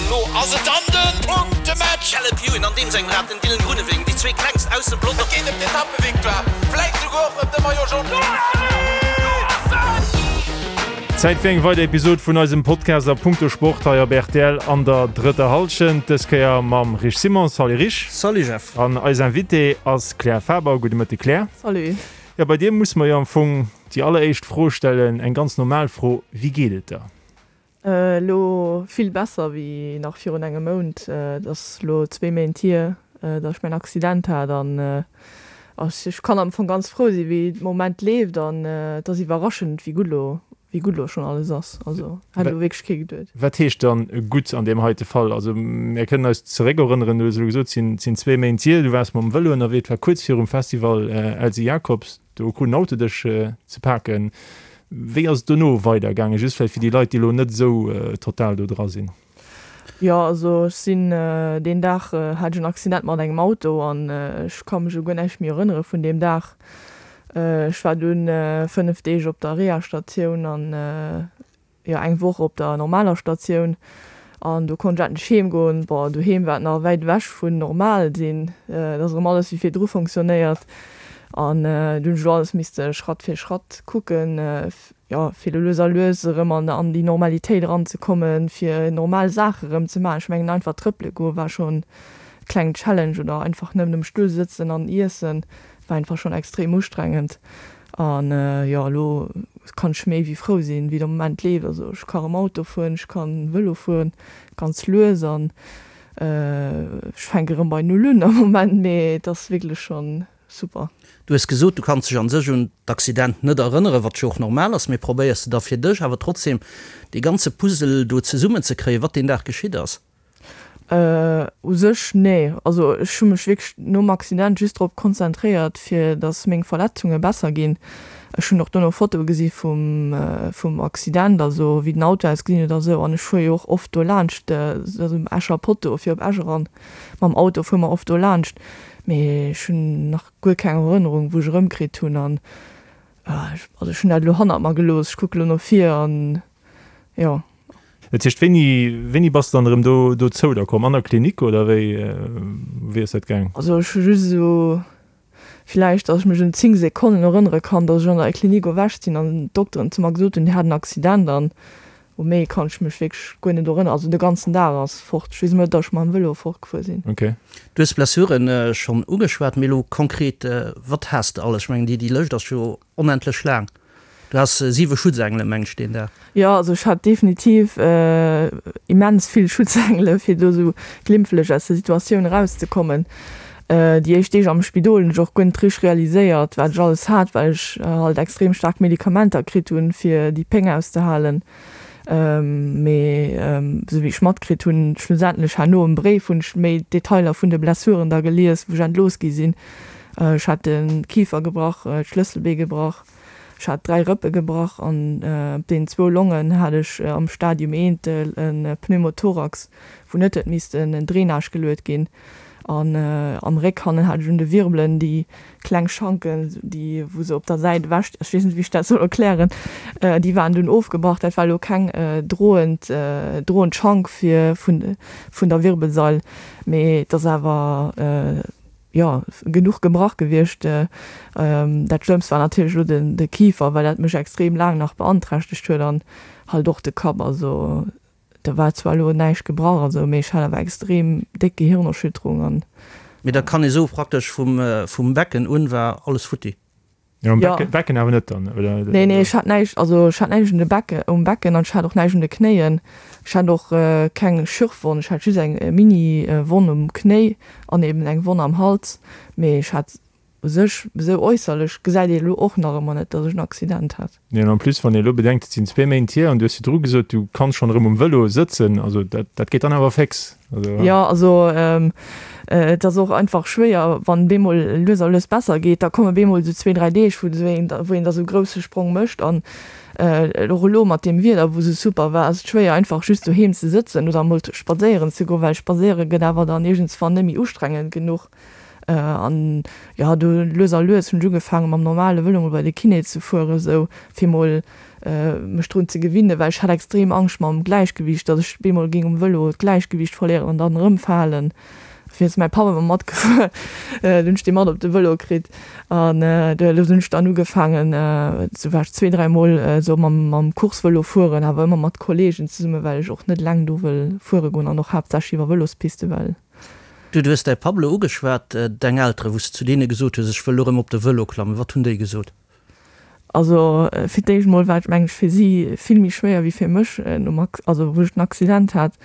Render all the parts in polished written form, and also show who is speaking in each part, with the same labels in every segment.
Speaker 1: Lo ass et dann de Punktematch!
Speaker 2: Caleb Ewan an deem sengem Rad, den Dylan Groenewegen, déi zwee klengst aus dem Pelotong.
Speaker 1: Et geet ëm d'Etappevictoire, vläit souguer och ëm de Maillot Jaune.
Speaker 3: Zäit fir eng weider Episod vun eisem Podcast a punkto Sport hei op rtl an der drëtter Hallschent. Dës Kéier mam Rich Simon. Salut Rich.
Speaker 4: Salut Jeff.
Speaker 3: An eis Invitée ass Claire Faber. Gudde Mëtte Claire.
Speaker 5: Salut.
Speaker 3: Jo, bei dir muss mer jo am Fong déi alleréischt Fro stellen, eng ganz normal Fro, Wéi geet et der?
Speaker 5: Elo vill besser wéi nach virun engem Mount. Et ass elo zwee Méint hier, datt ech mäin Accident hat an ech kann am Fong ganz frou sinn, wéi de Moment leeft an et ass iwwerraschend, wéi gutt elo, wéi gutt elo schonn alles ass. Also hätt elo wierklech kee geduet.
Speaker 3: Wat heescht dann gutt an deem heite Fall? Also mir kënnen eis zeréckerënneren, du hues elo gesot, et sinn zwee Méint hier, du waars mam Vëlo ënnerwee, et war kuerz virum Festival Elsy Jacobs. Do krut en Auto dech ze paken. Wéi ass et dono weider gaangen? Just vläicht fir déi Leit, déi elo net esou total do dra sinn.
Speaker 5: Jo, also ech sinn deen Dag hat ech en Accident mat engem Auto an ech ka mech u guer näischt méi erënnere vun deem Dag. Ech war dunn 5 Deeg op der Reha-Statioun an jo eng Woch op der normaler Statioun an do konnt ech endlech heem goen. Bon, doheem war et nach wäit ewech vun normal sinn, et ass erëm alles wéi virdru fonctionnéiert an du hunn ech elo alles misste Schratt fir Schratt kucken, jo fir elo lues a lues erëm an an déi Normalitéit eranzekommen, fir normal Saache erëm ze maachen. Ech mengen einfach trëppele goe war schonn e klengen Challenge oder einfach nëmmen um Stull sëtzen an iessen war einfach schonn extrem ustrengend. An jo, elo kann ech méi wéi frou sinn, wéi de Moment leeft. Also ech ka rëm Auto fueren, ech kann Vëlo fueren, ganz lues an ech fänke rëm bei Null un am Moment, mee et ass wierklech schonn super.
Speaker 4: Du hues gesot, du kanns dech an sech un d'Accident net erënneren, wat jo och normal ass, mee probéiers de da fir dech awer trotzdem dee ganze Puzzle do zesummen ze kréien, wat deen Dag geschitt ass?
Speaker 5: U sech nee. Also ech hu mech wierklech nom Accident just drop konzentréiert, fir datt meng Verletzunge besser ginn. Ech hunn och dono Fotoe gesi vum vum Accident, also wéi den Auto ausgesinn huet a sou. An ech fuere jo och oft do laanscht, also um Escher Potto fir op Esch eran. Mam Auto fuere mer oft do laanscht. Mee ech hunn nach guer keng Erënnerung, wou ech erëmkritt hunn. An also ech hunn dat elo hannert mer gelooss. Ech kucke lo no vir an jo.
Speaker 3: Dat heescht, wéini, wéini bass de dann erëm do, dozou da komm? An der Klinik oder wéi, wéi ass dat gaang?
Speaker 5: Also ech hu just esou villäicht, datt ech mech un 10 Sekonnen erënnere kann, datt ech an der Klinik erwächt sinn an d'Dokteren zu mer gesot hunn, déi hat en Accident an u méi kann ech mech wierklech guer net erënneren. Also de ganzen Dag ass fort. Ech weess nëmme, datt ech mam Vëlo fortgefuer sinn.
Speaker 3: Ok.
Speaker 4: Du hues d'Blessuren schonn ugeschwat, mee elo konkret, wat has de alles? Ech mengen, déi, déi Lëscht ass jo onendlech laang. Du has siwe Schutzengele meng ech deen Dag.
Speaker 5: Jo, also ech hat definitiv immens vill Schutzengele fir do sou glimpflech aus der Situatioun erauszekommen. Déi éischt Deeg am Spidol hunn ech och guer net richteg realiséiert wat ech alles hat, well ech halt extrem staark Medikamenter kritt hunn fir déi Péng auszehalen. Mee sou wéi ech matkritt hunn, schlussendlech herno um Bréif hunn ech méi Detailer vun de Blessuren da gelies wou ech entlooss gi sinn. Ech hat de Kifer gebrach, d'Schlësselbee gebrach. Ech hat 3 Rëppe gebrach an op deenen zwou Longen hat ech am Stadium I e Pneumothorax, wou net huet missten en Drainage geluet ginn. An am Réck hannen hat ech un de Wirbelen déi kleng Schanken, déi wou se op der Säit ewech, ech weess net wéi ech dat soll erklären, déi waren dunn ofgebrach. Dat war elo keng droend droend Schank fir vun vun der Wirbelsail, mee et ass awer, jo, genuch gebrach gewiescht. Dat Schlëmmst war natierlech elo de Kifer, well dat mech extrem laang nach beanträchtegt huet an halt och de Kapp. Also do war zwar elo näischt gebrach an esou, mee ech hat awer extrem déck Gehirnerschütterung an.
Speaker 4: Mee da kann ee soe praktesch vum Becken un war alles futti.
Speaker 3: Jo, um Becken, Becken awer net dann, oder?
Speaker 5: Nee, nee, ech hat näischt, also ech hat näischt un de Becken, um Becken an ech hat och näischt un de Knéien. Ech hat och keng Schürfwonn, ech hat just eng Mini-Wonn um Knéi an eben eng Wonn am Hals. Mee ech hat u sech, esou äusserlech gesäit ee elo och nach ëmmer net, datt ech en Accident hat.
Speaker 3: Nee, an en plus, wann ee elo bedenkt, et sinn zwee Méint hier an du hues virdru gesot, du kanns schonn erëm um Vëlo sëtzen, also dat, dat geet dann awer féx.
Speaker 5: Also. Jo, also et ass och einfach schwéier, wann bemol lues a lues besser geet, da komme bemol esou zwee, dräi Deeg, wou een wou een da sou grousse Sprong mécht. An och elo mat deem Wieder, wou sou super war, ass et schwéier einfach just doheem ze sëtzen oder emol spadséieren ze goen, well spadséiere gëtt awer dann iergendswann net méi ustrengend genuch. An jo, du lues a lues hunn ech ugefaange mam normale Vëlo mol bei de Kiné ze fueren, esou fir mol. mech drun ze gewinnen, well ech hat extrem Angscht mam Gläichgewiicht, datt ech bemol géing um Vëlo d'Gläichgewiicht verléieren an dann erëmfalen. Dofir ass mäi Papp ëmmer matgefuer, dunn hunn ech dee mat op de Vëlo kritt an do hunn ech dann ugefaangen, sou war ech zwee, dräi mol esou mam mam Coursevëlo fueren, awer ëmmer mat Kollegen zesummen, well ech och net eleng do wëll fuere goen an och haaptsächlech iwwer Vëlospiste, well.
Speaker 4: Du hues däi Papp elo ugeschwat, deng Elteren, wou s de zu deene gesot hues, ech wëll elo erëm op de Vëlo klammen, wat hunn déi gesot?
Speaker 5: Also fir d'éischt mol war et meng ech fir si vill méi schwéier wéi fir mech nom Ac also wou ech den Accident hat,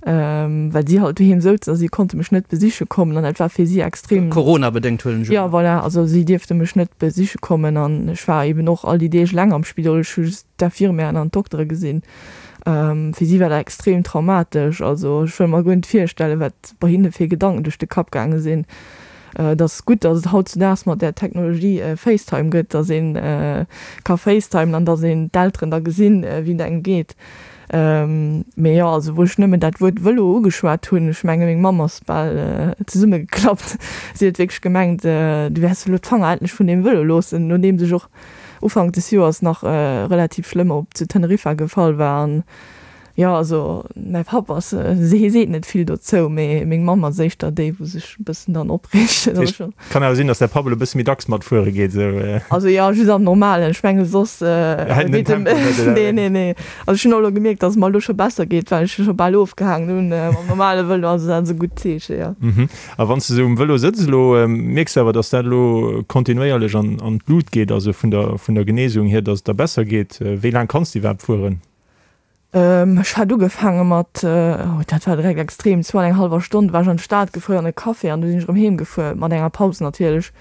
Speaker 5: well si halt doheem souzen a si konnte mech net besiche kommen an dat war fir si extrem.
Speaker 4: Corona-bedéngt huelen ech un.
Speaker 5: Jo voilà, also si dierfte mech net besiche kommen an ech war eben och all déi Deeg eleng am Spidol, ech hu just d'Infirmièren an d'Doktere gesinn. Fir si war dat extrem traumatesch, also ech wëll mer guer net virstellen, wat bei hinne fir Gedanken duerch de Kapp gaange sinn. Et ass gutt, datt et hautzudaags mat där Technologie FaceTime gëtt, datt ee ka facetimen an datt een d'Elteren da gesinn, wéi et engem geet. Mee jo, also wou ech nëmmen dat Wuert Vëlo ugeschwat hunn, ech menge meng Mamm ass bal zesummegeklappt. Si huet wierklech gemengt, du wäers elo d'Fanger endlech vun deem Vëlo loossen, nodeems ech och Ufank des Joers nach relativ schlëmm op zu Teneriffa gefall war. An Jo, also mäi Papp ass, hie seet net vill dozou, mee meng Mamm ass éischter déi, wou sech e bëssen dann opreegt.
Speaker 3: Dat heescht, kann awer sinn, datt däi Papp elo e bësse méi dacks matfuere geet, esou?
Speaker 5: Also jo, just am Normalen. Ech menge soss
Speaker 3: Hält en den Tempo net, oder?
Speaker 5: Nee, nee, nee. Also ech hunn och elo gemierkt, datt et mer elo scho besser geet, well ech scho bal ofgehaangen hunn mam normale Vëlo. Also dat ass e gutt Zeeche, jo.
Speaker 3: A wann s de esou um Vëlo sëtz elo, mierks de awer, datt dat elo kontinuéierlech an an d'Lut geet, also vun der vun der Genesung hier, datt et der besser geet. Wéi laang kanns de iwwerhaapt fueren?
Speaker 5: Ech hat ugefaange mat, oh dat war direkt extrem, zwou an eng hallwer Stonn war ech an d'Stad gefuer an e Café an du sinn ech erëm heem gefuer, mat enger Paus natierlech.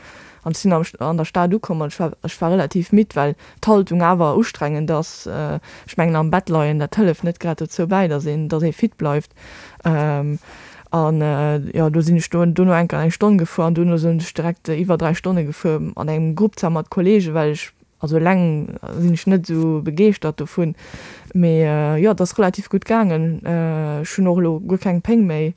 Speaker 5: An ech sinn an der Stad ukomm an ech war ech war relativ midd, well d'Haltung awer ustrengend ass. Ech mengen am Bett leien, dat hëlleft net grad dozou bäi, datt een datt ee fit bleift. An jo, do sinn ech do dono enker eng Stonn gefuer an dono sinn ech direkt iwwer 3 Stonne gefuer an engem Grupp zwar mat Kollegen, well ech Also eleng sinn ech net esou begeeschtert dovun, mee jo, et ass relativ gutt gaangen. Ech hunn och elo guer keng Péng méi.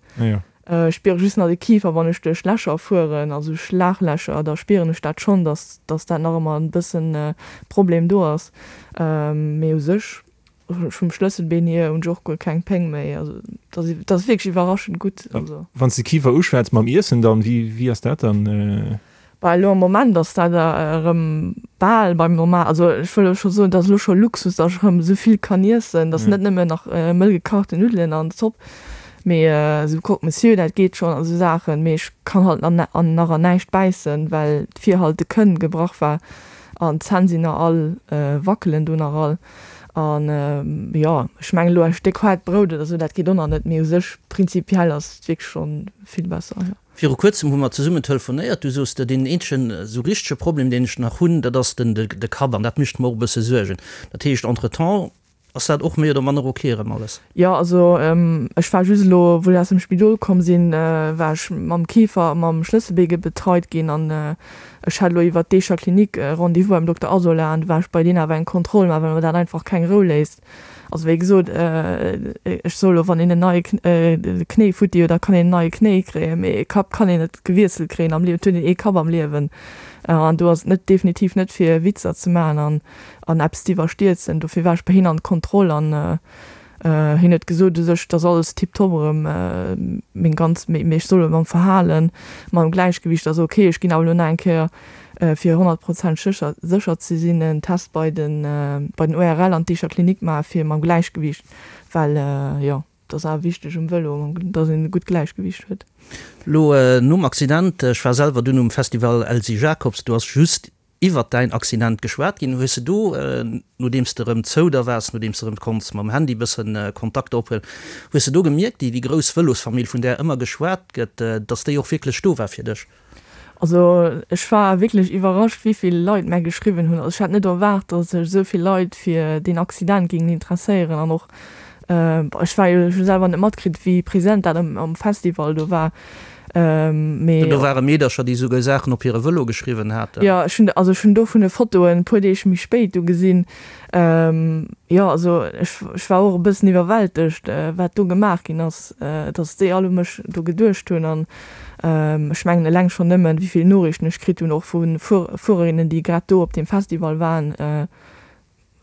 Speaker 5: Ech spiere just nach de Kifer, wann ech duerch Lächer fueren, also Schlaglächer, da spieren ech dat schonn, dass dass dat nach ëmmer e bëssen Problem do ass. Mee u sech vum Schlësselbeen hier hunn ech och guer keng Péng méi. Also dat ass wierklech iwwerraschend gutt.
Speaker 3: Wann s de Kifer uschwätz mam Iessen dann, wéi wéi ass dat dann?
Speaker 5: Bah elo am Moment ass dat erëm bal beim normal, also ech wëll elo scho soen, dat ass elo scho Luxus, datt ech erëm esou vill kann iessen, datt net nëmmen nach mëll gekachten Nuddelen an Zopp, mee esou Croque Monsieur, dat geet schonn a sou Saachen, mee ech kann halt nach an näischt bäissen, well d'Vir halt de Kënn gebrach war an d'Zänn sinn nach all, wackelen do nach all an jo, ech mengen elo e Stéck haart Brout oder sou, dat geet och nach net, mee u sech prinzipiell ass et wierklech scho vill besser, jo.
Speaker 4: Viru kuerzem hu mer zesummen telefonéiert, du soos de, deen eenzegen esou richtege Problem, deen ech nach hunn, dat ass den de Kapp an dat mécht mer och e bësse Suergen. Dat heescht, entretemps ass dat och méi oder manner ok erëm alles?
Speaker 5: Jo, also ech war just elo, wou ech aus dem Spidol komm sinn, war ech mam Kifer a mam Schlësselbee betreit ginn an ech hat elo iwwert d'Eecher Klinik e Rendez-vous beim Dokter Asola an du war ech bei deen awer eng Kontroll maachen, well mer dat einfach keng Rou léisst. Also wéi gesot, ech soe lo, wann een en neie Knéi futti huet, da kann een en neie Knéi kréien, mee e Kapp kann een net gewiesselt kréien am Liewen. Et huet een ee Kapp am Liewen an do ass et net definitiv net fir Witzer ze maachen an an eppes ze iwwerstierzen. Dofir war ech bei hien an d'Kontroll an hien huet gesot u sech, et ass alles tiptop erëm, meng ganz, mee ech soll mam Verhalen, mam Gläichgewicht ass ok. Ech ginn awer elo nach eng Kéier fir 100 Prozent sécher sécher ze sinn, en Test bei den bei den ORL an d'Eecher Klinik maache fir mam Gläichgewicht, well jo, et ass awer wichteg um Vëlo, dass een e gutt Gläichgewicht huet.
Speaker 4: Lo nom Accident, ech war selwer dunn um Festival Elsy Jacobs, do ass just iwwert däin Accident geschwat ginn. Hues de do, nodeems de erëm zou der waars, nodeems de erëm konns mam Handy bëssen Kontakter ophuelen, hues de do gemierkt, déi déi grouss Vëlosfamill, vun där ëmmer geschwat gëtt, dass déi och wierklech do war fir dech?
Speaker 5: Also ech war wierklech iwwerrascht wéivill Leit mär geschriwwen hunn. Also ech hat net erwaart, datt sech esou vill Leit fir deen Accident géingen interesséieren an och ech war jo, ech hu selwer net matkritt wéi present dat am Festival do war, mee.
Speaker 4: Do ware Meedercher déi esouguer Saachen op hire Vëlo geschriwwen haten.
Speaker 5: Jo ech hunn, also ech hunn dovun Fotoen e puer Deeg méi spéit du gesinn. Jo also ech ech war och e bëssen iwwerwältegt wat do gemaach ginn ass, datt déi all u mech do geduecht hunn an Ech mengen eleng schonn nëmmen, wéi vill Noriichten ech kritt hunn, och vu Fuererinnen, déi grad do op deem Festival waren.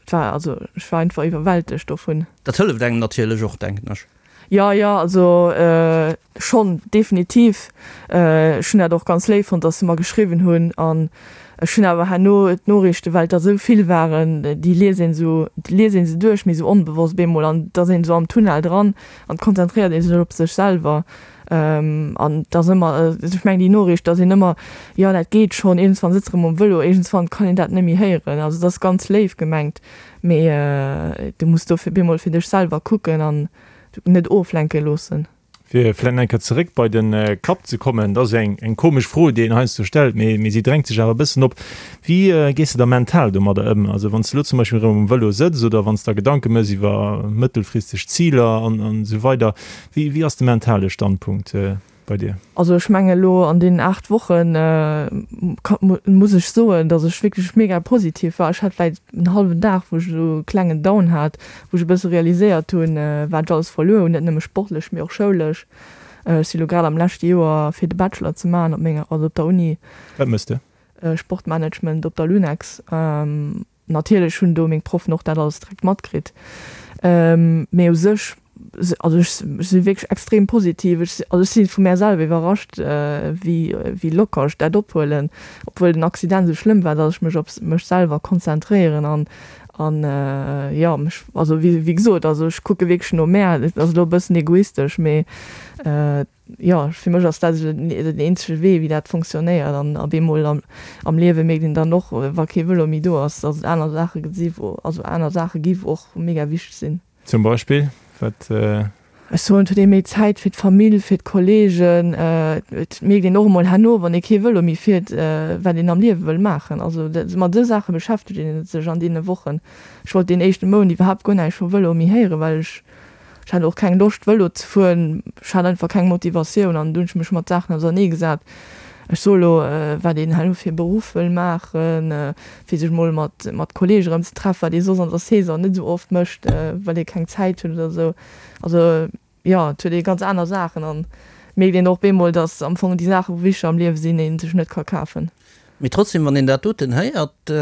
Speaker 5: Et war, also ech war einfach iwwerwältegt dovun.
Speaker 4: Dat hëlleft engem natierlech och, denken ech.
Speaker 5: Jo, jo, also schonn, definitiv. Ech hunn dat och ganz léif fonnt, dass se mer geschriwwen hunn. An ech hunn awer herno d'Noriichten, well et der esou vill waren, déi liest een esou, déi liest ee se duerch, mee esou onbewosst bemol. An et ass een esou am Tunnel dran an et konzentréiert ee sech op sech selwer. An et ass ëmmer, ech mengen déi Noriicht, dass een ëmmer, jo dat geet schonn, iergendswann sëtz erëm um Vëlo, iergendswann kann een dat net méi héieren. Also et ass ganz léif gemengt, mee du muss dofir bemol fir dech selwer kucken an net oflenke loossen.
Speaker 3: Fir vläicht nach eng Kéier zeréck bei de Kapp ze kommen, dat ass eng eng komesch Fro, déi een heiansdo stellt, mee mee si drängt sech awer e bëssen op. Wéi gees de da mental domadder ëm? Also wann s de elo zum Beispill erëm um Vëlo sëtz oder wann s der Gedanke méchs iwwer mëttelfristeg Ziler an an esou weider, Wéi wéi ass de mentale Standpunkt bei dir?
Speaker 5: Also ech menge elo an deenen 8 Wochen muss ech soen, datt ech wierklech mega positiv war. Ech hat vläit en hallwen Dag, wou ech esou e klengen Down hat, wou ech e bësse realiséiert hunn, wat ech alles verluer hunn, net nëmme sportlech, mee och schoulesch. Ech si lo grad am leschte Joer fir de Bachelor ze maachen op menger, also op der Uni.
Speaker 3: Wat méchs de?
Speaker 5: Sportmanagement op der Lunex. Natierlech hunn do meng Proffen och dat alles direkt matkritt. Mee u sech, also ech si wierklech extrem positiv. Ech also ech si vu mär selwer iwwerrascht, wéi wéi locker ech dat ophuelen, obwuel den Accident esou schlëmm war, datt ech mech op mech selwer konzentréieren an an jo mech, also wéi wéi gesot, also ech kucke wierklech no mär. Et ass elo e bëssen egoistesch, mee Jo, fir mech ass dat esou den eenzege Wee, wéi dat fonctionnéiert. An op eemol am Liewe mierkt een dann och, wa kee Vëlo méi do ass, dass et aner Saache si wou, also aner Saache gi wou och mega wichteg sinn.
Speaker 3: Zum Beispill? Wat?
Speaker 5: Ech soen, et huet ee méi Zäit fir d'Famill, fir d'Kolleegen. Et mierkt een och emol herno, wann ee kee Vëlo méi fiert, wat een am Liewe wëll maachen. Also mat esou Saache beschäftegt ee sech an deene Wochen. Ech wollt deen éischte Mount iwwerhaapt guer näischt vum Vëlo méi héieren, well ech Ech hat och keng Loscht Vëlo ze fueren, ech hat einfach keng Motivatioun an du hunn ech mech mat Saachen ausernee gesat. Ech soe lo, wat een herno fir e Beruff wëll maachen, fir sech mol mat mat Kolleege erëm ze treffen, wat ee soss an der Saison net esou oft mécht, well ee keng Zäit huet oder esou. Also jo, et huet ee ganz aner Saachen an mierkt een och bemol, datt am Fong déi Saache wou wichteg am Liewe sinn, ee sech net ka kafen.
Speaker 4: Mee trotzdem, wann een dat doten héiert,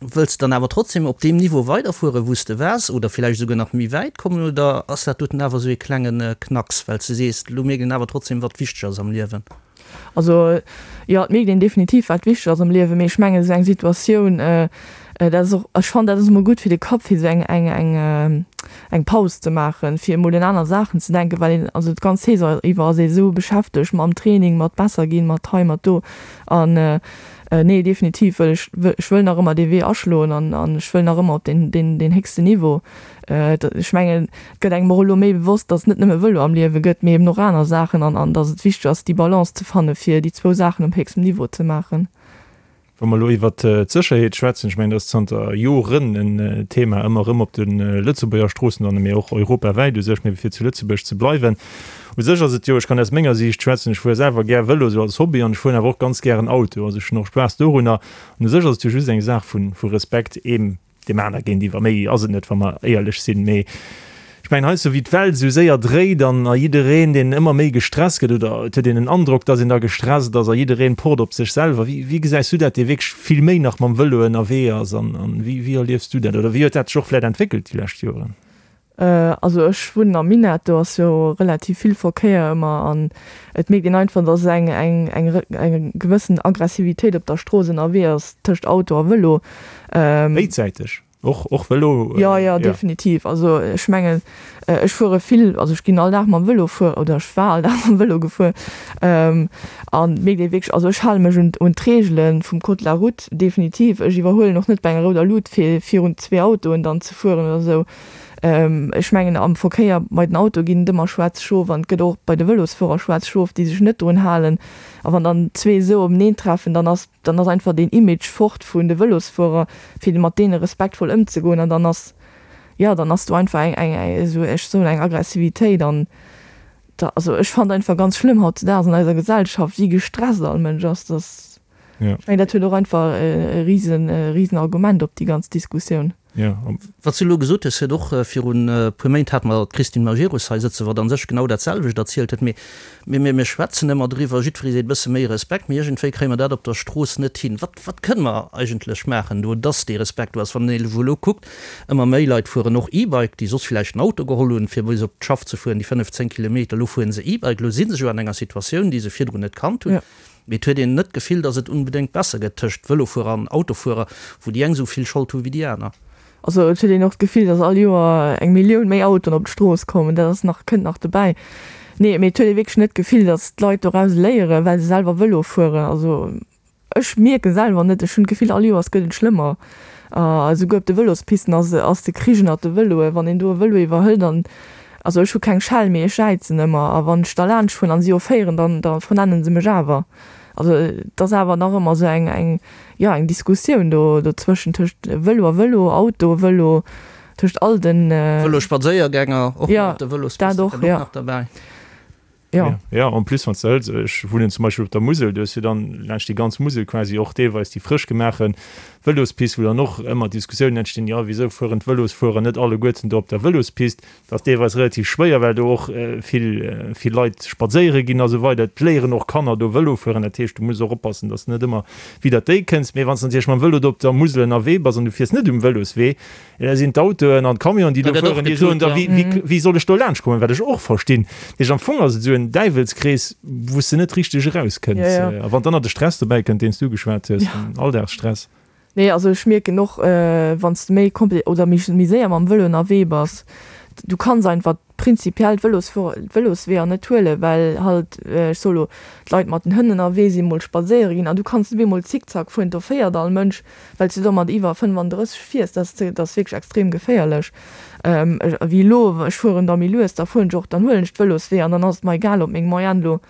Speaker 4: wëlls de dann awer trotzdem op deem Niveau weiderfueren, wou s de waars, oder villäicht esouguer nach méi wäit kommen, oder ass dat doten awer esou ee klenge Knacks, well s de sees, elo mierkt een awer trotzdem, wat wichteg ass am Liewen?
Speaker 5: Also jo, et mierkt een definitiv, wat wichteg ass am Liewen, mee ech mengen, esou eng Situatioun, dat ass och, ech fannen, dat ass emol gutt fir de Kapp, fir esou eng, eng, eng, eng Paus ze maachen, fir emol un aner Saachen ze denken, well een, also d'ganz Saison iwwer ass ee esou beschäftegt mam Training, mat besser ginn, mat hei, mat do an nee, definitiv wëll ech, ech wëll nach ëmmer dee Wee aschloen an an ech wëll nach ëmmer op deen, deen, deen héchsten Niveau. Ech mengen, et gëtt engem och elo méi bewosst, datt et net nëmme Vëlo am Liewe gëtt, mee eben och aner Saachen an an datt et wichteg ass, déi Balance ze fanne fir déi zwou Saachen op héchstem Niveau ze maachen.
Speaker 3: Wa mer elo iwwert d'Sécherheet schwätzen, ech mengen, dat ass zanter Joren en Thema ëmmer erëm op de Lëtzebuerger Stroossen an mee och europawäit u sech, mee fir zu Lëtzebuerg ze bleiwen, u sech ass et jo, ech kann aus menger Siicht schwätzen, ech fuere selwer gär Vëlo esou als Hobby an ech fueren awer och ganz gären Auto, also ech hunn och Spaass dorunner an u sech ass et jo just eng Saach vu Respekt eem Deem aner géintiwwer. Méi ass et net, wa mer éierlech sinn. Mee ech mengen, heiansdo wéi d'Welt esou séier dréit an a jiddereen, deen ëmmer méi gestresst gëtt, oder et huet een den Androck, dass een da gestresst ass a jiddereen pocht op sech selwer. Wéi, wéi gesäis du dat, dee wierklech vill méi nach mam Vëlo ënnerwee ass? An, an wéi, wéi erliefs du dat? Oder wéi huet dat sech och vläicht entwéckelt déi lescht Joren?
Speaker 5: Also ech wunnen am Minett, do ass jo relativ vill Verkéier ëmmer an et mierkt een einfach, dass eng eng eng eng gewëssen Aggressivitéit op der Strooss ënnerwee ass tëscht Auto a Vëlo.
Speaker 3: Béidsäiteg? Och och Vëlo?
Speaker 5: Jo, jo, definitiv. Also ech mengen, ech fuere vill, also ech ginn all Dag mam Vëlo fuer oder ech war all Dag mam Vëlo gefuer an et mierkt ee wierklech, also ech hale mech un un d'Reegele vum Code de la route, definitiv. Ech iwwerhuelen och net bei enger rouder Lut fir virun zwee Autoen dann ze fueren oder esou. Ech mengen am Verkéier bei den Autoe ginn et ëmmer schwaarz Schof an et gëtt och bei de Vëlosfuerer schwaarz Schof, déi sech net drun halen. A wann dann zwee esou openeen treffen, dann ass dann ass einfach deen Image fort vun de Vëlosfuerer, fir mat deene respektvoll ëmzegoen. An dann ass, jo, dann ass do einfach eng eng esou, ech soen eng Aggressivitéit an da, also ech fannen einfach ganz schlëmm hautzedaags an eiser Gesellschaft, wéi gestresst all Mënsch ass, dass. Ech mengen, dat huet och einfach e risen, e risen Argument op déi ganz Diskussioun.
Speaker 4: Ja. Wat s du elo gesot hues, huet och virun e puer Méint hate mer d'Christine Majerus hei sëtzen, wat a sech genau dat selwecht erzielt huet. Mee mir, mir schwätzen ëmmer driwwer, jiddweree seet e bësse méi Respekt, mee iergendwéi kréie mer dat op der Strooss net hin. Wat, wat kënne mer eigentlech maachen do, dass dee Respekt do ass? Wann een elo kuckt, ëmmer méi Leit fueren och E-Bike, déi soss villäicht en Auto geholl hunn, fir bis op d'Schaff ze fueren, déi 5, 10 Kilometer, elo fuere se E-Bike, elo si se jo an enger Situatioun, déi se virdrun net kannt hunn. Mee et huet een net d'Gefill, datt et unbedéngt besser gëtt tëscht Vëlofuerer an Autofuerer, wou déi eng esou vill Schold hu wéi déi aner.
Speaker 5: Also et huet een och d'Gefill, datt all Joer eng Millioun méi Autoen op d'Strooss kommen. Dat ass nach, kënnt nach dobäi. Nee, mee et huet ee wierklech net d'Gefill, datt d'Leit doraus léieren, well se selwer Vëlo fueren. Also ech mierke selwer net, ech hunn d'Gefill, all Joers gëtt et schlëmmer. A souguer op de Vëlospisten ass ass de Krich ënnert de Vëloen. Wann een do e Vëlo iwwerhëlt an, also ech hu keng Schell, mee ech jäizen ëmmer. A wann ech da laanscht fueren an si offéieren, dann da vernennen se mech awer. Also et ass awer nach ëmmer esou eng eng jo eng Diskussioun do dozwëschen, tëscht Vëlo a Vëlo, Auto, Vëlo, tëscht all den.
Speaker 4: Vëlospadséiergänger och nach op de Vëlospiste
Speaker 5: kënnt och nach derbäi.
Speaker 3: Jo. Ja, en plus wann s de hëls, ech wunnen zum Beispill op der Musel, du hues jo dann laanscht déi ganz Musel quasi och deelweis déi frësch gemaache Vëlospist, wou dann och ëmmer Diskussiounen entstinn, jo wisou fueren d'Vëlosfuerer net alleguerten do op der Vëlospist? Dat ass deelweis relativ schwéier, well do och vill, vill Leit spadséiere ginn a sou weider. Et léieren och Kanner do Vëlo fueren, dat heescht du muss och oppassen, dass de net ëmmer widder déi kënns. Mee wann s de natierlech mam Vëlo do op der Musel ënnerwee bass an du fiers net um Vëloswee, Da sinn d'Autoen an d'Camionen, déi do fueren, déi soen da, wéi soll ech do laanscht kommen, wat ech och verstinn. Dat heescht, am Fong ass et esou en Däiwelskrees, wou s de net richteg erauskënns. A wann dann nach de Stress dobäi kënnt, deen s du geschwat hues, den Alldagsstress.
Speaker 5: Nee, also ech mierken och, wann s de méi kompli oder méi séier mam Vëlo ënnerwee bass, du kanns einfach prinzipiell d'Vëlosweeër net huelen, well halt, ech soe lo, d'Leit mat den Hënn ënnerwee sinn, mol spadséiere ginn an du kanns net op eemol zickzack fueren, do féiert all Mënsch. Well s du do mat iwwer 35 fiers, dat ass wierklech extrem geféierlech. Wéi elo, ech fueren da méi lues, da fueren ech och, dann huelen ech d'Vëloswee an dann ass et mer egal, ob meng Moyenne elo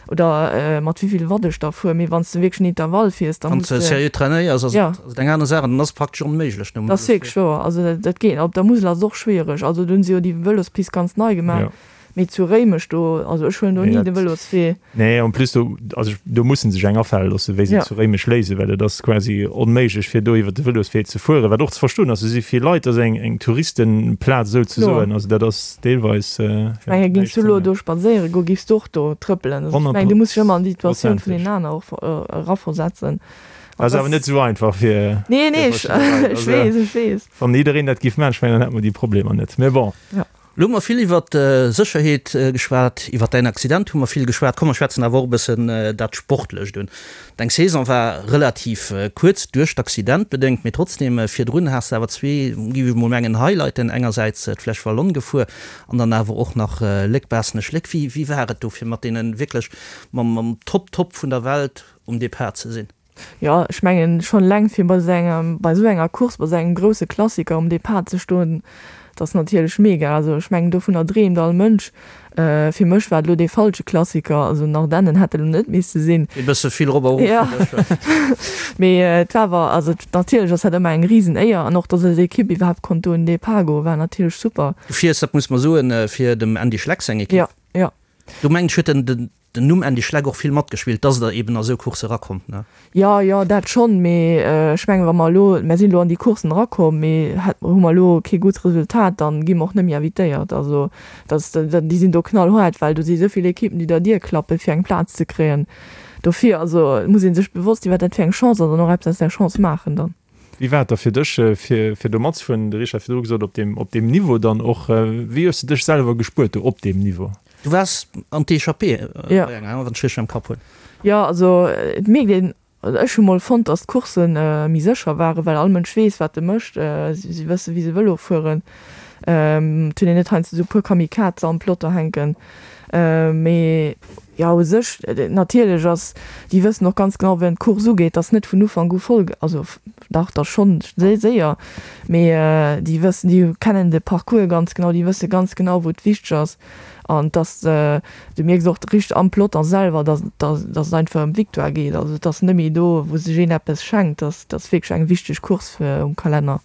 Speaker 5: oder mat wéi vill Watt ech da fuer. Mee wann s de wierklech en Intervall fiers, da
Speaker 4: muss de. Wann s de seriö trainéiers, ass et eng aner Saach an dann ass et praktesch onméiglech
Speaker 5: nom. Dat ass wierklech wouer. Also dat geet. Op der Musel ass et och schwiereg. Also do hunn se jo déi Vëlospist ganz nei gemaach. Mee zu Réimech do, also ech huelen do ni de Vëloswee.
Speaker 3: Nee, en plus do, also do mussen sech eng afale loossen, wéi se et zu Réimech léisen, well et ass quasi onméiglech fir do iwwer de Vëloswee ze fueren, wat och ze verstoen ass. Do si vill Leit, dat ass eng, eng Touristenplaz esouzesoen, also dat ass deelweis.
Speaker 5: Ech mengen, géings du elo do spadséiere goen, géifs du och do trëppelen. Also ech mengen, du muss dech ëmmer an déi Situatioun vun deenen aner och eraversetzen.
Speaker 3: Ass awer net esou einfach fir.
Speaker 5: Nee, nee, ech weess, ech weess.
Speaker 3: Wann jiddereen dat géif maachen, ech mengen, dann hätte mer déi Problemer net. Mee bon.
Speaker 4: Elo hu mer vill iwwert Sécherheet geschwat, iwwert däin Accident hu mer vill geschwat. Komm mer schwätzen awer och e bëssen dat Sportlecht un. Deng Saison war relativ kuerz, duerch d'Accident bedéngt, mee trotzdeem, virdrun has de awer zwee, géif ech mol mengen, Highlighten, engersäits d'Flèche Wallonne gefuer an dann awer och nach Léck-Baaschtnech-Léck. Wéi wéi war et do fir mat deene wierklech mam mam Top Top vun der Welt um Depart ze sinn?
Speaker 5: Jo, ech mengen schonn eleng fir bei esou engem, bei esou enger Course, bei esou engem grousse Klassiker um Depart ze stoen, dat ass natierlech mega. Also ech mengen dovunner dreemt all Mënsch. Fir mech war et elo dee falsche Klassiker, also den Ardennen hätt et elo net misse sinn.
Speaker 4: E bësse vill rop a rof
Speaker 5: fir dech, wa? Mee et war awer, also natierlech ass dat ëmmer eng risen Éier an och datt eis Ekipp iwwerhaapt konnt do un den Depart goen, war natierlech super.
Speaker 4: Du fiers, dat muss mer soen, fir dem Andy Schleck seng Ekipp.
Speaker 5: Jo, jo.
Speaker 4: Do mengen ech huet den Den Numm Andy Schleck och vill matgespillt, dass der eben a sou Coursse erakommt, ne?
Speaker 5: Jo, jo, dat schonn, mee ech mengen, wa mer elo, mer sinn elo an déi Courssen erakomm, mee hätt, hu mer elo kee gutt Resultat, dann gi mer och net méi invitéiert. Also dat, déi sinn do knallhaart, well do si sou vill Ekippen, déi der Dier klappen, fir eng Plaz ze kréien. Dofir, also et muss ee sech bewosst sinn, wat dat fir eng Chance ass an och eppes aus där Chance maachen dann.
Speaker 3: Wéi war et da fir dech, fir, fir do matzefueren? De Richard huet virdru gesot, op deem, op deem Niveau dann och. Wéi hues de dech selwer gespuert do op deem Niveau?
Speaker 4: Du waars an d'Echappée bei enger, wann ech richteg am Kapp hunn.
Speaker 5: Jo, also et mierkt een, also ech hu mol fonnt, datt d'Coursse méi sécher waren, well all Mënsch weess, wat e mécht. Si wësse wéi se Vëlo fueren. Et hunn een net heiansdo esou e puer Kamikaze am Peloton hänken. Mee jo, u sech, natierlech ass, déi wëssen och ganz genau, wéi d'Course ugeet, datt net vun Ufank u voll, also dach, da schonn séier, mee déi wëssen, déi kennen de Parcours ganz genau, déi wësse ganz genau, wou et wichteg ass. An dass, du mierks och richteg am Peloton selwer, dass dass et einfach ëm d'Victoire geet. Also et ass net méi do, wou sech een eppes schenkt, dass ass wierklech eng wichteg Course um Kalenner.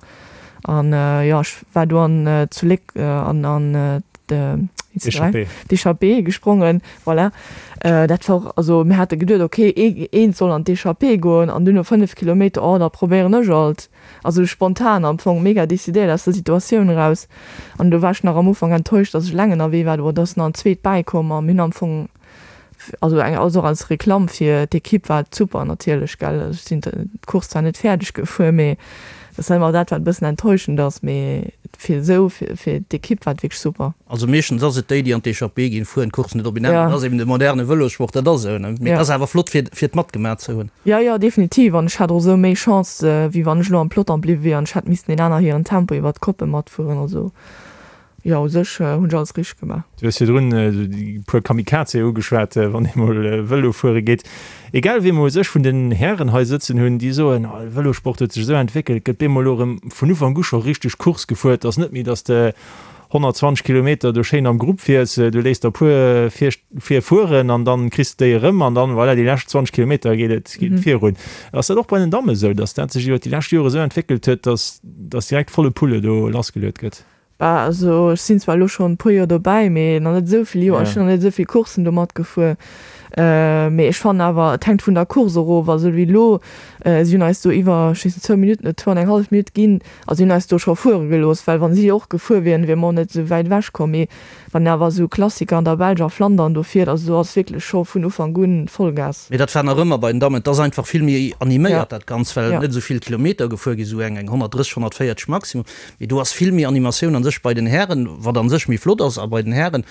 Speaker 5: An jo, ech war do an zu Léck an an. d'Échappée gesprongen, voilà. Dat war och, also mir hate geduet, ok, eent soll an d'Échappée goen an dunn no 5 Kilometer, oh da probéieren ech alt. Also spontan am Fong, mega decidéiert aus der Situatioun eraus. An do war ech nach am Ufank enttäuscht, dass ech eleng ënnerwee war, do ass nach en zweet bäikomm a mir hunn am Fong, also eng also och als Reklamm fir d'Ekipp war et super natierlech gell. Ech sinn d'Course zwar net fäerdeg gefuer, mee dat ass ëmmer dat wat e bëssen enttäuschend ass, mee fir esou fir fir d'Ekipp war et wierklech super.
Speaker 4: Also meeschtens ass et déi déi an d'Echappée ginn, fueren d'Course net op een Enn. Dat ass eben de moderne Vëlossport, dat ass esou ne. Mee et ass awer flott fir fir et matgemaach ze hunn.
Speaker 5: Jo jo definitiv an ech hat och esou méi Chance wéi wann ech elo am Peloton bliwwe wier an ech hätt missten een aner hiren Tempo iwwert d'Koppe matfueren. Also Jo, u sech hunn ech alles richteg gemaach.
Speaker 3: Du hues virdrun esou déi puer Kamikaze ugeschwat, wann ee mol Vëlo fuere geet. Egal wee mer u sech vun den Hären hei sëtzen hunn, déi soen, oh de Vëlosport huet sech esou entwéckelt, gëtt bemol elo erëm vun Ufank u scho richteg Course gefuer. Et ass net méi, datt de 120 Kilometer do schéin am Grupp fiers, du léiss der e puer vir virfueren an dann kriss de déi erëm an dann, voilà, déi lescht 20 Kilometer geet et geet et virun. Ass dat och bei den Damme esou, datt dat sech iwwer déi lescht Jore esou entwéckelt huet, datt datt direkt volle Pulle do lassgeluet gëtt?
Speaker 5: Bah, also ech sinn zwar elo schonn e puer Joer dobäi, mee nach net esou vill Joer. Ech sinn nach net esou vill Courssen do matgefuer. Mee ech fannen awer, et hänkt vun der Course erof. Also wéi elo, si hunn eis do iwwer, ech weess net, zwou Minutten oder zwou an eng hallef Minutt ginn. Also si hunn eis do scho fuere gelooss, well wa si och gefuer wieren, wiere mer och net esou wäit ewech komm. Mee wann een awer esou Klassiker an der Belsch a Flandern do fiert, also do ass wierklech scho vun Ufank un Vollgas.
Speaker 4: Mee dat war nach ëmmer bei den Dammen. Et ass einfach vill méi animéiert dat Ganzt, well net esou vill Kilometer gefuer ginn, esou eng 130, 140 maximum. Mee do ass vill méi Animatioun an sech bei den Hären, wat an sech méi flott ass. A bei den Hären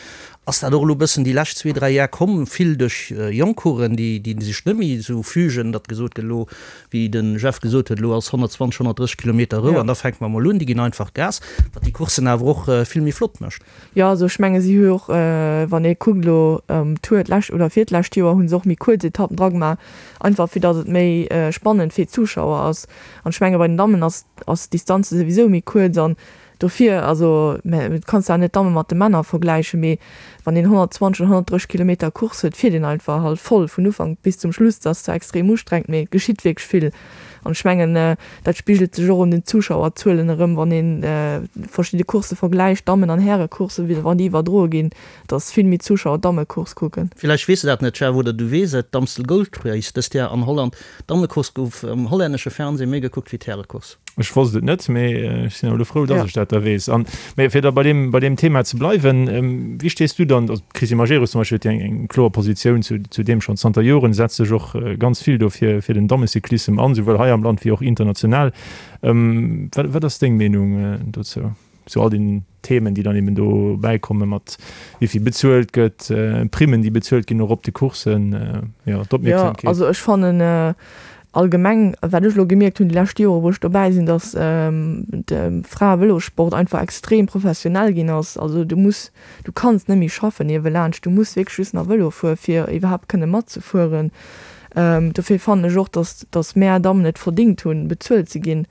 Speaker 4: ass dat och elo e bëssen déi lescht zwee, dräi Jar komm, vill duerch jonk Coursen, déi déi sech net méi esou fügen, datt gesot gëtt, elo, wéi de Jeff gesot huet, elo ass 120, 130 Kilometer Rou an da fänke mer emol un. Déi ginn einfach Gas, wat déi Courssen awer och vill méi flott mécht.
Speaker 5: Jo, also ech menge si hu jo och, wann ee kuckt elo Tour d'lescht oder virtlescht Joer hu se och méi kuerz Etappen dragemaach, einfach fir datt et méi spannend fir d'Zuschauer ass. An ech menge bei den Dammen ass ass d'Distanze souwisou méi kuerz an dofir, also mä du kanns awer net d'Damme mat de Männer vergläichen, mee wann een 120 oder 130 Kilometer Course huet, fiert een einfach halt voll vun Ufank bis zum Schluss. Dat ass zwar extrem ustrengend, mee et geschitt wierklech vill an ech mengen dat spigelt sech och un den Zuschauerzuelen erëm, wann een verschidde Coursse vergläicht, Dammen an Härecourssen, wann déi iwwerdroe ginn, dass vill méi Zuschauer d'Dammecourse kucken.
Speaker 4: Villäicht weess de dat net, Jeff, oder du weess et, d'Amstel Gold Race dëst Jar an Holland, D'Dammecourse gouf am hollännesche Fernseh méi gekuckt wéi d'Härecourse.
Speaker 3: Ech wosst et net, mee ech sinn awer elo frou, dass ech dat da weess. An, mee fir da bei deem, bei deem Thema ze bleiwen, wéi stees du dann, also d'Christine Majerus zum Beispill huet jo eng, eng kloer Positioun zu, zu deem schonn zanter Joren, setzt sech och ganz vill do fir, fir den Dammecyclissem an, souwuel hei am Land wéi och international. Wat, wat ass deng Meenung dozou? Zu all den Themen, déi dann eben do bäikomme mat wéi vill bezuelt gëtt, Primmen, déi bezuelt ginn och op de Courssen, jo,
Speaker 5: d'Opmierksamkeet. Jo, also ech fannen allgemeng, wat ech elo gemierkt hunn déi lescht Jore wou ech dobäi sinn, datt de Fraevëlossport einfach extrem professionell ginn ass. Also du muss, du kanns net méi schaffen niewelaanscht, du muss wierklech just nach Vëlo fuere fir iwwerhaapt kënne matzefueren. Dofir fannen ech och, datt, datt mär Dammen et verdingt hunn, bezuelt ze ginn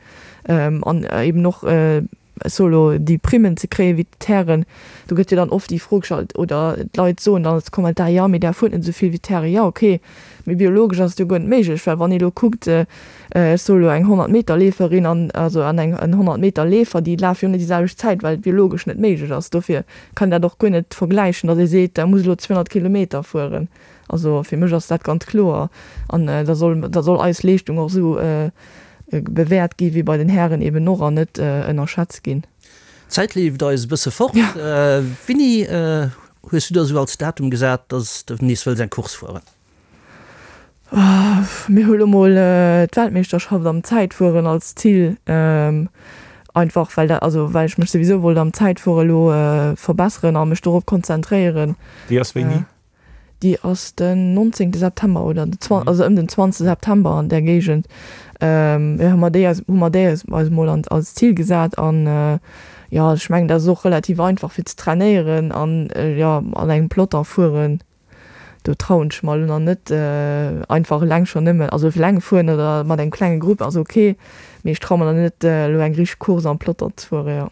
Speaker 5: an eben och, ech soe lo, déi Primmen ze kréien wéi d'Hären. Do gëtt jo dann oft déi Fro gestallt oder d'Leit soen dann als Kommentar, jo, mee där fuert net esou vill wéi d'Hären. Jo, okay, mee biologesch ass et jo guer net méiglech, well wann ee lo kuckt, ech soe lo eng 100 Meter Leeferin an also an eng en 100 Meter Leefer, déi lafe jo net déi selwecht Zäit, well et biologesch net méiglech ass. Dofir kann een dat och guer net vergläichen, datt ee seet, der muss elo 200 Kilometer fueren. Also fir mech ass dat ganz kloer an da soll da soll eis Leeschtung och esou bewäert gi wéi bei den Hären eben och an net ënnerschätzt ginn.
Speaker 4: D'Zäit leeft eis e bësse fort. Winni hues du der esou als Datum gesat, dass de nees wëlls eng Course fueren?
Speaker 5: Mir hu lo mol d'Weltmeeschterschaft am Zäitfueren als Zil, einfach well dat, also well ech mech souwisou wollt am Zäitfuere lo verbesseren a mech dorop konzentréieren.
Speaker 3: Déi ass wéini?
Speaker 5: Déi ass den 19 September oder den 20, also ëm den 20 September an där Géigend. Jo, hu mer déi eis, hu mer déi eis eis mol an, als Zil gesat an jo, ech mengen dat ass och relativ einfach fir ze trainéieren an jo, an engem Peloton fueren, do trauen ech mer elo nach net einfach eleng schonn nëmmen, also eleng fueren oder mat engem klenge Grupp ass ok, mee ech traue mer nach net elo eng richteg Course am Peloton ze fueren, jo.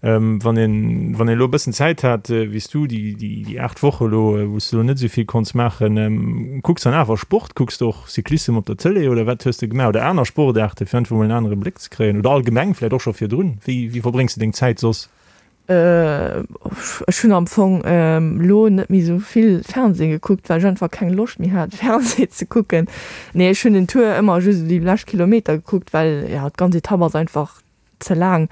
Speaker 3: Wann een, wann een elo e bëssen Zäit hat, wéi s du, déi, déi, déi 8 Woche elo, wou s du elo net esou vill konns maachen, kucks dann awer Sport? Kucks de och Cyclissem op der Tëlee oder wat hues de gemaach? Oder aner Sportaarte fir einfach mol en anere Bléck ze kréien oder allgemeng vläicht och scho virdrun? Wéi, wéi verbréngs de deng Zäit soss?
Speaker 5: Ech hunn am Fong elo net méi esou vill Fernseh gekuckt, well ech einfach keng Loscht méi hat Fernseh ze kucken. Nee, ech hunn den Tour ëmmer just esou déi lescht Kilometer gekuckt, well jo d'ganz Etapp ass einfach ze laang.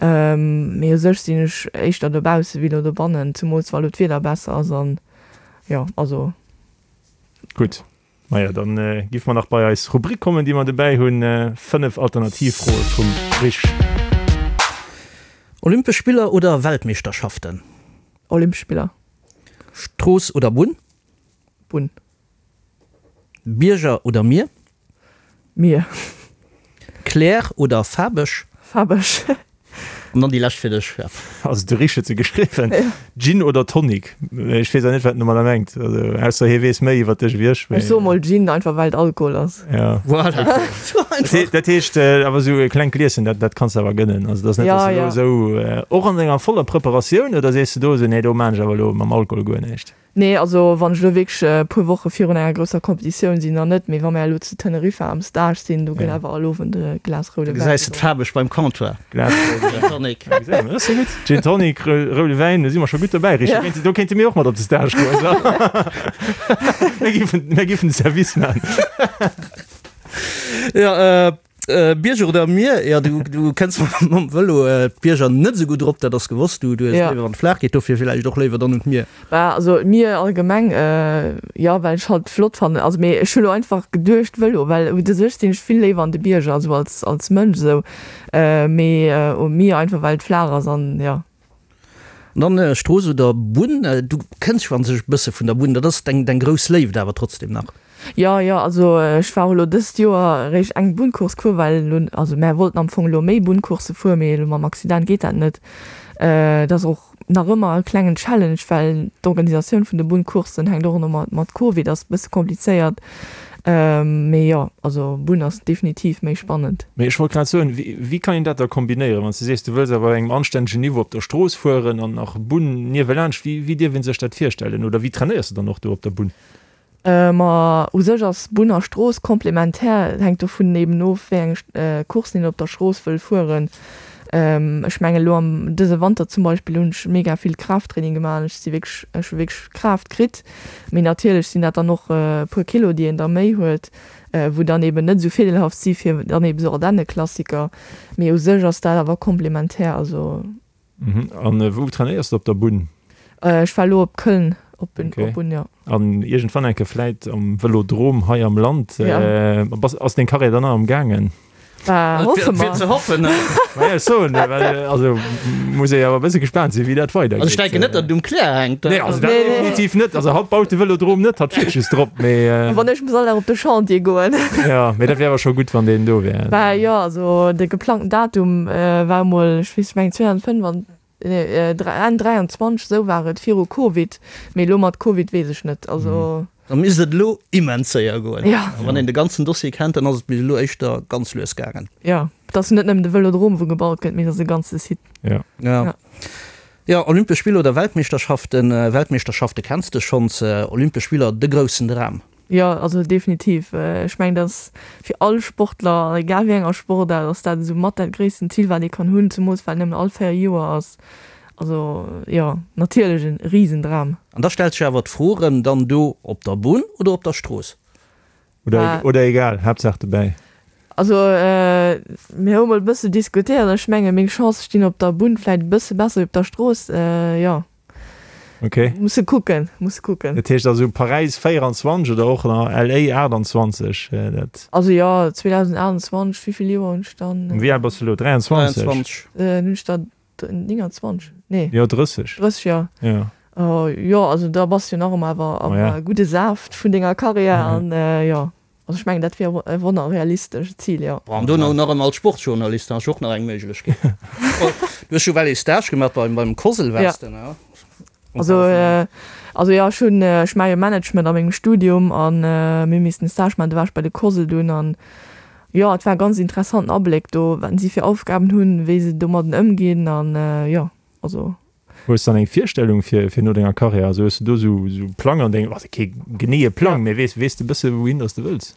Speaker 5: Mee u sech sinn ech éischter dobausse wéi elo dobannen, zemools wa elo d'Wieder besser ass an jo, also.
Speaker 3: Gutt. Maja, dann giff mer nach bei eis Rubrik kommen, déi mer dobäi hunn, 5 Alternativfroe vum Rich.
Speaker 4: Olympesch Spiller oder Weltmeeschterschaften?
Speaker 5: Olympesch Spiller.
Speaker 4: Strooss oder Bunn?
Speaker 5: Bunn.
Speaker 4: Bierger oder Mier?
Speaker 5: Mier.
Speaker 4: Claire oder faarweg?
Speaker 5: Faarweg.
Speaker 4: An dann déi lescht fir dech, Jeff.
Speaker 3: Also de Rich huet se geschriwwen. Gin oder Tonic? Ech weess awer net, wat en domadder mengt. Also ausser hie weess méi iwwer dech ewéi ech.
Speaker 5: Ech soe mol Gin, einfach well et Alkohol ass.
Speaker 3: Ja.
Speaker 4: Voilà. Sou einfach.
Speaker 3: Dat heescht awer esou e klengt Glieschen, dat, dat kanns de awer gënnen. Also dat ass net, dass
Speaker 5: Ja,
Speaker 3: du elo
Speaker 5: ja.
Speaker 3: esou, och an denger voller Preparatioun, oder sees de do esou, nee do maan ech awer elo mam Alkohol guer näischt?
Speaker 5: Nee, also wann ech elo wierklech e puer Woche virun enger grousser Competitioun sinn, dann net. Mee wa mir elo zu Teneriffa am Stage sinn, do gëtt awer all Owend e Glas roude
Speaker 4: Da
Speaker 5: Wäin
Speaker 4: gesäis de
Speaker 5: gedronk.
Speaker 4: d'Faarweg beim Comptoir.
Speaker 3: Glas roude
Speaker 4: Gin
Speaker 3: Wäin.
Speaker 4: Tonic.
Speaker 3: Ja, gesäis de, dat ass jo gutt. Gin Tonic, roude Wäin, do si mer scho gutt dobäi, Richie.
Speaker 5: Ja.
Speaker 3: Do kéinte, do kéinte mir och mat op de Stage goen. Mir giffen, mir giffen de Service man.
Speaker 4: Ja, Bierger oder Mier? Jo, du, du kënns mam Vëlo d'Bierger net esou gutt erop, dat ass gewosst. Du, du hues
Speaker 5: Ja.
Speaker 4: léiwer, wann et flaach geet, dofir villäicht och léiwer dann un d'Mier.
Speaker 5: Bah, also d'Mier allgemeng, jo, well ech halt flott fannen. Also, mee ech hu lo einfach geduecht Vëlo, well u sech sinn ech vill léiwer an de Bierger, also als, als Mënsch esou. Mee um Mier einfach well et flaach ass an jo.
Speaker 4: An dann Strooss oder Bunn? Du kënns jo an sech e bësse vun der Bunn, dat ass deng, deng grouss Léift awer trotzdem nach.
Speaker 5: Jo, jo, also ech war och elo dëst Joer eréischt eng Bunncourse gefuer, well elo, also mär wollten am Fong elo méi Bunncourse fueren, mee elo mam Accident geet dat net. Et ass och nach ëmmer e klengen Challenge, well d'Organisatioun vun de Bunncoursen hänkt och elo mat Covid, ass e bësse komplizéiert. Mee jo, also Bunn ass definitiv méi spannend.
Speaker 3: Mee ech wollt grad soen, wéi kann een dat da kombinéieren, wann s de sees, du wëlls awer op engem anstännegen Niveau op der Strooss fueren an nach Bunn niewelaanscht, wéi wéi dierf ee sech dat virstellen oder wéi trainéiers de dann och do op der Bunn?
Speaker 5: Ma u sech ass Bunn a Strooss komplementär, et hänkt dovun eben of, wéi eng Courssen een op der Strooss wëll fueren. Ech mengen elo am dëse Wanter zum Beispill hunn ech mega vill Kraafttraining gemaach an ech si wierklech, ech hu wierklech Kraaft kritt. Mee natierlech sinn dat dann och e puer Kilo, déi een da méi huet, wou dann eben net esou virdeelhaft si fir dann eben esou Ardenneklassiker. Mee u sech ass dat awer komplementär, also.
Speaker 3: An wou trainéiers de op der Bunn?
Speaker 5: Ech war elo op Köln op Bunn, jo.
Speaker 3: An iergendwann eng Kéier vläit am Vëlodrom hei am Land. Ass deng Karriär dann nach am gaangen?
Speaker 5: Bah, hoffe mer.
Speaker 4: Fir ze hoffen.
Speaker 3: Maja, ech soen, well also muss ee awer e bësse gespaant sinn, wéi dat weidergeet.
Speaker 4: Also ech denken net, datt et um Claire hänkt.
Speaker 3: Nee, also dat definitiv net. Also hatt baut de Vëlodrom net, hatt fiert just drop, mee.
Speaker 5: Wann ech muss all Dag op de Chantier goen.
Speaker 3: Jo, mee dat wär awer scho gutt, wann deen do wär.
Speaker 5: Bah jo, also de geplangten Datum war emol, ech weess, ech mengen 2025, nee, Enn 23, esou war et viru Covid, mee elo mat Covid weess ech net, also.
Speaker 4: Da misst et elo immens séier goen.
Speaker 5: Ja.
Speaker 4: A wann een de ganzen Dossier kennt, dann ass et bis elo éischter ganz lues gaangen.
Speaker 5: Jo, et ass jo net nëmmen de Vëlodrom, wou gebaut gëtt, mee et ass e ganze Site.
Speaker 3: Ja.
Speaker 4: Ja. Ja, Olympesch Spiller oder Weltmeeschterschaften? Weltmeeschterschafte kenns de schonns, Olympesch Spiller, de groussen Dram.
Speaker 5: Jo, also definitiv. Ech mengen, dat ass fir all Sportler, egal wéi enger Sportaart, ass dat esou mat dat gréissten Zil, wat ee kann hunn, zemools well et nëmmen all 4 Joer ass. Also jo, natierlech e Risendram.
Speaker 4: An da stellt sech awer d'Fro erëm, dann do op der Bunn oder op der Strooss?
Speaker 3: Oder, oder egal, Haaptsaach dobäi.
Speaker 5: Also mir hu mol e bësse diskutéiert an ech menge meng Chancë stinn op der Bunn vläit e bësse besser wéi op der Strooss, jo.
Speaker 3: Ok.
Speaker 5: Musse kucken, musse kucken.
Speaker 3: Dat heescht also Paräis 24 oder och nach LA 28, dat.
Speaker 5: Also jo, 2028, wéi vill Joer hunn ech dann?
Speaker 3: Wéi al bass de elo? 23?
Speaker 4: 23.
Speaker 5: Hunn ech der 29? Nee.
Speaker 3: Jo, 30.
Speaker 5: 30, jo.
Speaker 3: Jo.
Speaker 5: Jo, also da bass de jo nach ëmmer awer am gudde Saaft vun denger Karriär an jo. Also ech mengen dat wier e wonner realistescht Zil, jo.
Speaker 4: An dono nach ëmmer als Sportsjournalist, da ass jo och nach eng Méiglechkeet. Du hues jo well ee Stage gemaach beim beim COSL waars de, ne?
Speaker 5: Also also jo, ech hunn, ech maache jo Management a mengem Studium an mir hu missen e Stage maachen, do war ech bei de COSL dunn an jo, et war e ganz interessanten Abléck do, wat si fir Aufgaben hunn, wéi se domadden ëmginn an jo, also.
Speaker 3: Hues dann eng Virstellung fir fir no denger Karriär? Also hues de do sou sou Plang an dengem, also kee geneeë Plang, mee weess weess de bësse wouhin dass de wëlls?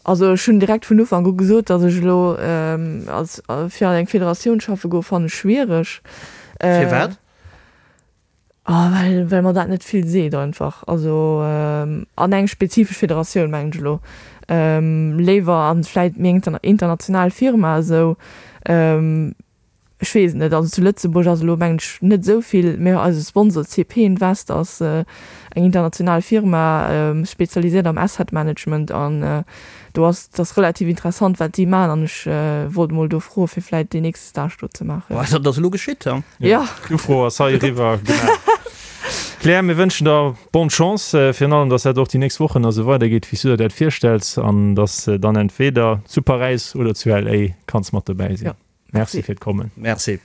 Speaker 5: Also ech hunn direkt vun Ufank u gesot, datt ech elo als fir an eng Federatioun schaffe goe fannen ech schwiereg.
Speaker 4: Firwat?
Speaker 5: Oh, well, well mer dat net vill seet einfach. Also an eng spezifesch Federatioun mengen ech elo. Léiwer an vläit méi eng international Firma esou. Ech weess et net. Also zu Lëtzebuerg ass elo mengen ech net esou vill, mä eise Sponsor CP Invest ass eng international Firma, spezialiséiert am Asset Management an do ass, et ass relativ interessant wat si maachen an ech wollt emol do froe fir vläit deen nächste Stage do ze maachen.
Speaker 4: Bon, dat ass elo geschitt,
Speaker 3: he? Ja. D'Ufro ass hei eriwwer gemaach. Claire, mir wënschen der bonne Chance, virun allem, dass dat och déi nächst Wochen esou weidergeet, wéi s du der dat virstells an dass de dann entweder zu Paräis oder zu LA kanns mat dobäi sinn.
Speaker 5: Ja.
Speaker 3: Merci fir d'Kommen.
Speaker 4: Merci.